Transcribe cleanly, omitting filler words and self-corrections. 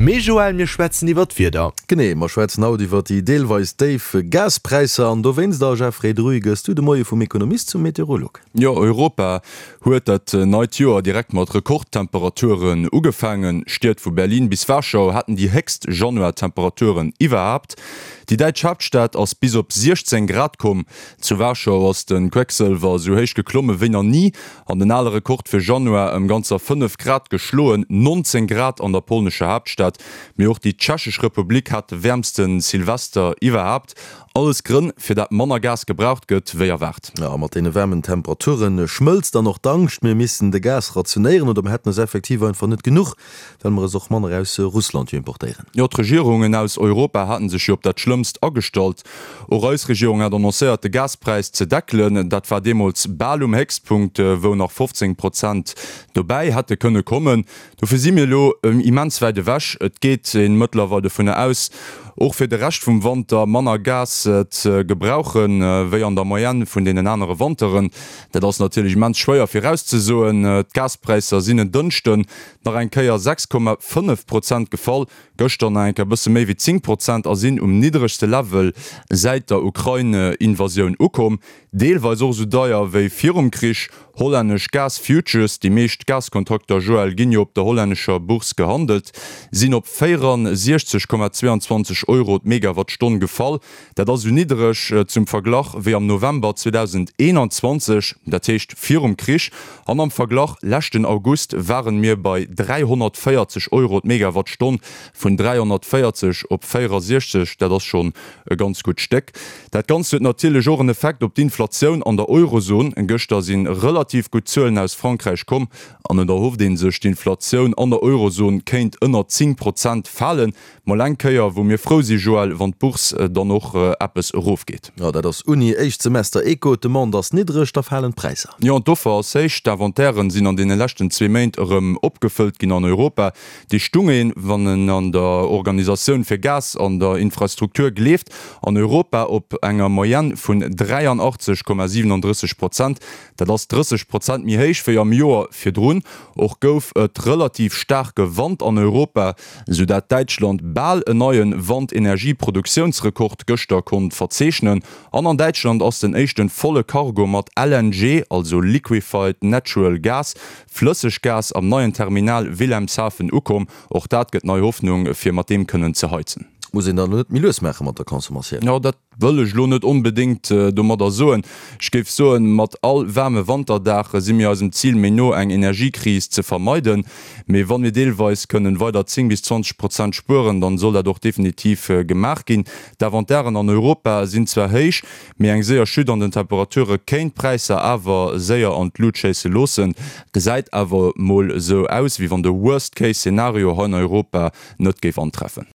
Mee Joël, mir schwätzen iwwer d'Wieder. Genee, mer schwätzen haut iwwer déi deelweis déif Gaspräisser an dowéinst, a Jeffrey Druy, gëss du de Moie vum Ekonomist zum Meteorolog. Jo, Europa huet dat neit Joer direkt mat Rekordtemperaturen ugefaangen. Stied vu Berlin bis Warschau haten déi héchst Januar-Temperaturen iwwerhaapt. Déi däitsch Haaptstad ass bis op 16 Grad komm. Zu Warschau ass de Quecksëlwer esou héich geklomme wéi nach ni an den ale Rekord fir Januar ëm ganzer 5 Grad geschloen, 19 Grad an der polnescher Haaptstad. Mee och déi Tschechesch Republik hat de wäermste Silvester iwwerhaapt. Alles Grënn, fir dat manner Gas gebraucht gëtt wéi erwaart. A mat deene waarmen Temperature schmëlzt dann och d'Angscht, mir missten de Gas rationéieren oder mer hätten es effektiv einfach net genuch, well mer es och manner aus Russland jo importéieren. Jo, d'Regierungen aus Europa haten sech jo op dat Schlëmmst agestallt. Och eis Regierung hat annoncéiert, de Gaspräis ze deckelen. Dat war deemools bal um Héchstpunkt, wou nach 15 Prozent dobäi hätte kënne kommen. Dofir si mir elo immens wäit ewech. Et geet ee mëttlerweil dovunner aus, och fir de Rescht vum Wanter manner Gas ze gebrauchen, wéi an der Moyenne vun deenen anere Wanteren. Dat ass natierlech immens schwéier virauszesoen. D'Gaspräisser sinn en Dënschden nach eng Kéier 6,5 Prozent gefall, gëschter nach eng Kéier e bësse méi wéi 10 Prozent a sinn um niddregste Level säit der Ukrain-Invasioun ukomm. Deelweis och esou deier wéi virum Krich. Hollännesch Gas-Futures, déi meescht Gaskontrakter, Joël, ginn jo op der hollännescher Bourse gehandelt, sinn op 64,22 Euro d'Megawattstonn gefall. Dat ass esou niddereg, zum Verglach, wéi am November 2021, dat heescht virum Krich. An am Verglach, leschten August waren mir bei 340 Euro d'Megawattstonn, vun 340 op 64, dat ass schonn e ganz gutt Stéck. Dat Ganzt huet natierlech och en Effekt op d'Inflatioun an der Eurozon. Gëschter si relativ gutt Zuelen aus Frankräich komm an et erhofft ee sech, d'Inflatioun an der Eurozon kéint ënner 10 Prozent falen. Mol eng Kéier wou mir frou si Joël, wann d'Bourse dann och eppes erofgeet. Jo, dat ass Uni, éischt Semester Eco, d'Demande ass niddreg, da falen d'Präisser. Jo, an d'Offer ass héich. D'Inventairen sinn an deene leschten zwee Méint erëm opgefëllt ginn an Europa. Déi stung een, wann en an der Organisatioun fir Gas an der Infrastruktur gleeft, an Europa op enger Moyenne vun 83,37 Prozent. Dat ass 30 Prozent méi héich wéi am Joer virdrun. Och gouf et relativ staarke Wand an Europa, sou dat Däitschland bal en neie Wandenergieproduktiounsrekord gëschter konnt verzeechnen. An an Däitschland ass den éischten volle Cargo mat LNG, also Liquefied Natural Gas, Flësseggas, am neien Terminal Wilhelmshaven ukomm. Och dat gëtt nei Hoffnung, fir mat deem kënnen ze heizen. Muss een dann elo net méi lues maache mat der Consommatioun? Jo, dat wëll ech elo net onbedéngt domadder soen. Ech géif soen, mat all waarme Wanterdag si mir eisem Zil méi no, eng Energiekris ze vermeiden. Mee wann mir deelweis kënnen weider 10 bis 20 Prozent spueren, dann soll dat och definitiv gemaach ginn. D'Inventairen an Europa sinn zwar héich, mee eng séier Chute an den Temperature kéint d'Präisser awer séier an d'Lut schéisse loossen. Gesäit awer mol esou aus, wéi wann de Worst-Case-Szenario hei an Europa net géif antreffen.